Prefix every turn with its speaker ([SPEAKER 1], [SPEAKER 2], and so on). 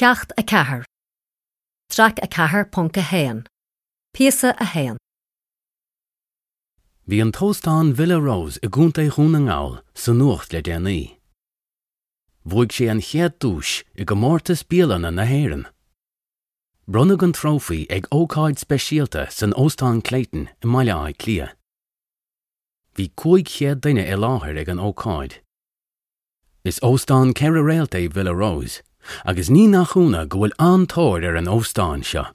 [SPEAKER 1] Ceacht 4, Traic 4.1, Píosa 1.
[SPEAKER 2] Bhí an t-óstán Villa Rose i gContae Dhún na nGall sa nuacht le déanaí. Bhuaigh sé an chéad duais i gcomórtas bialanna na hÉireann. Bronnadh an trófaí ag ócáid speisialta san Óstán Clayton i mBaile Átha Cliath. Bhí 500 duine i láthair ag an ócáid. Is óstán ceithre réalt é Villa Rose agus ní nach ionadh go bhfuil an-tóir ar an óstán seo.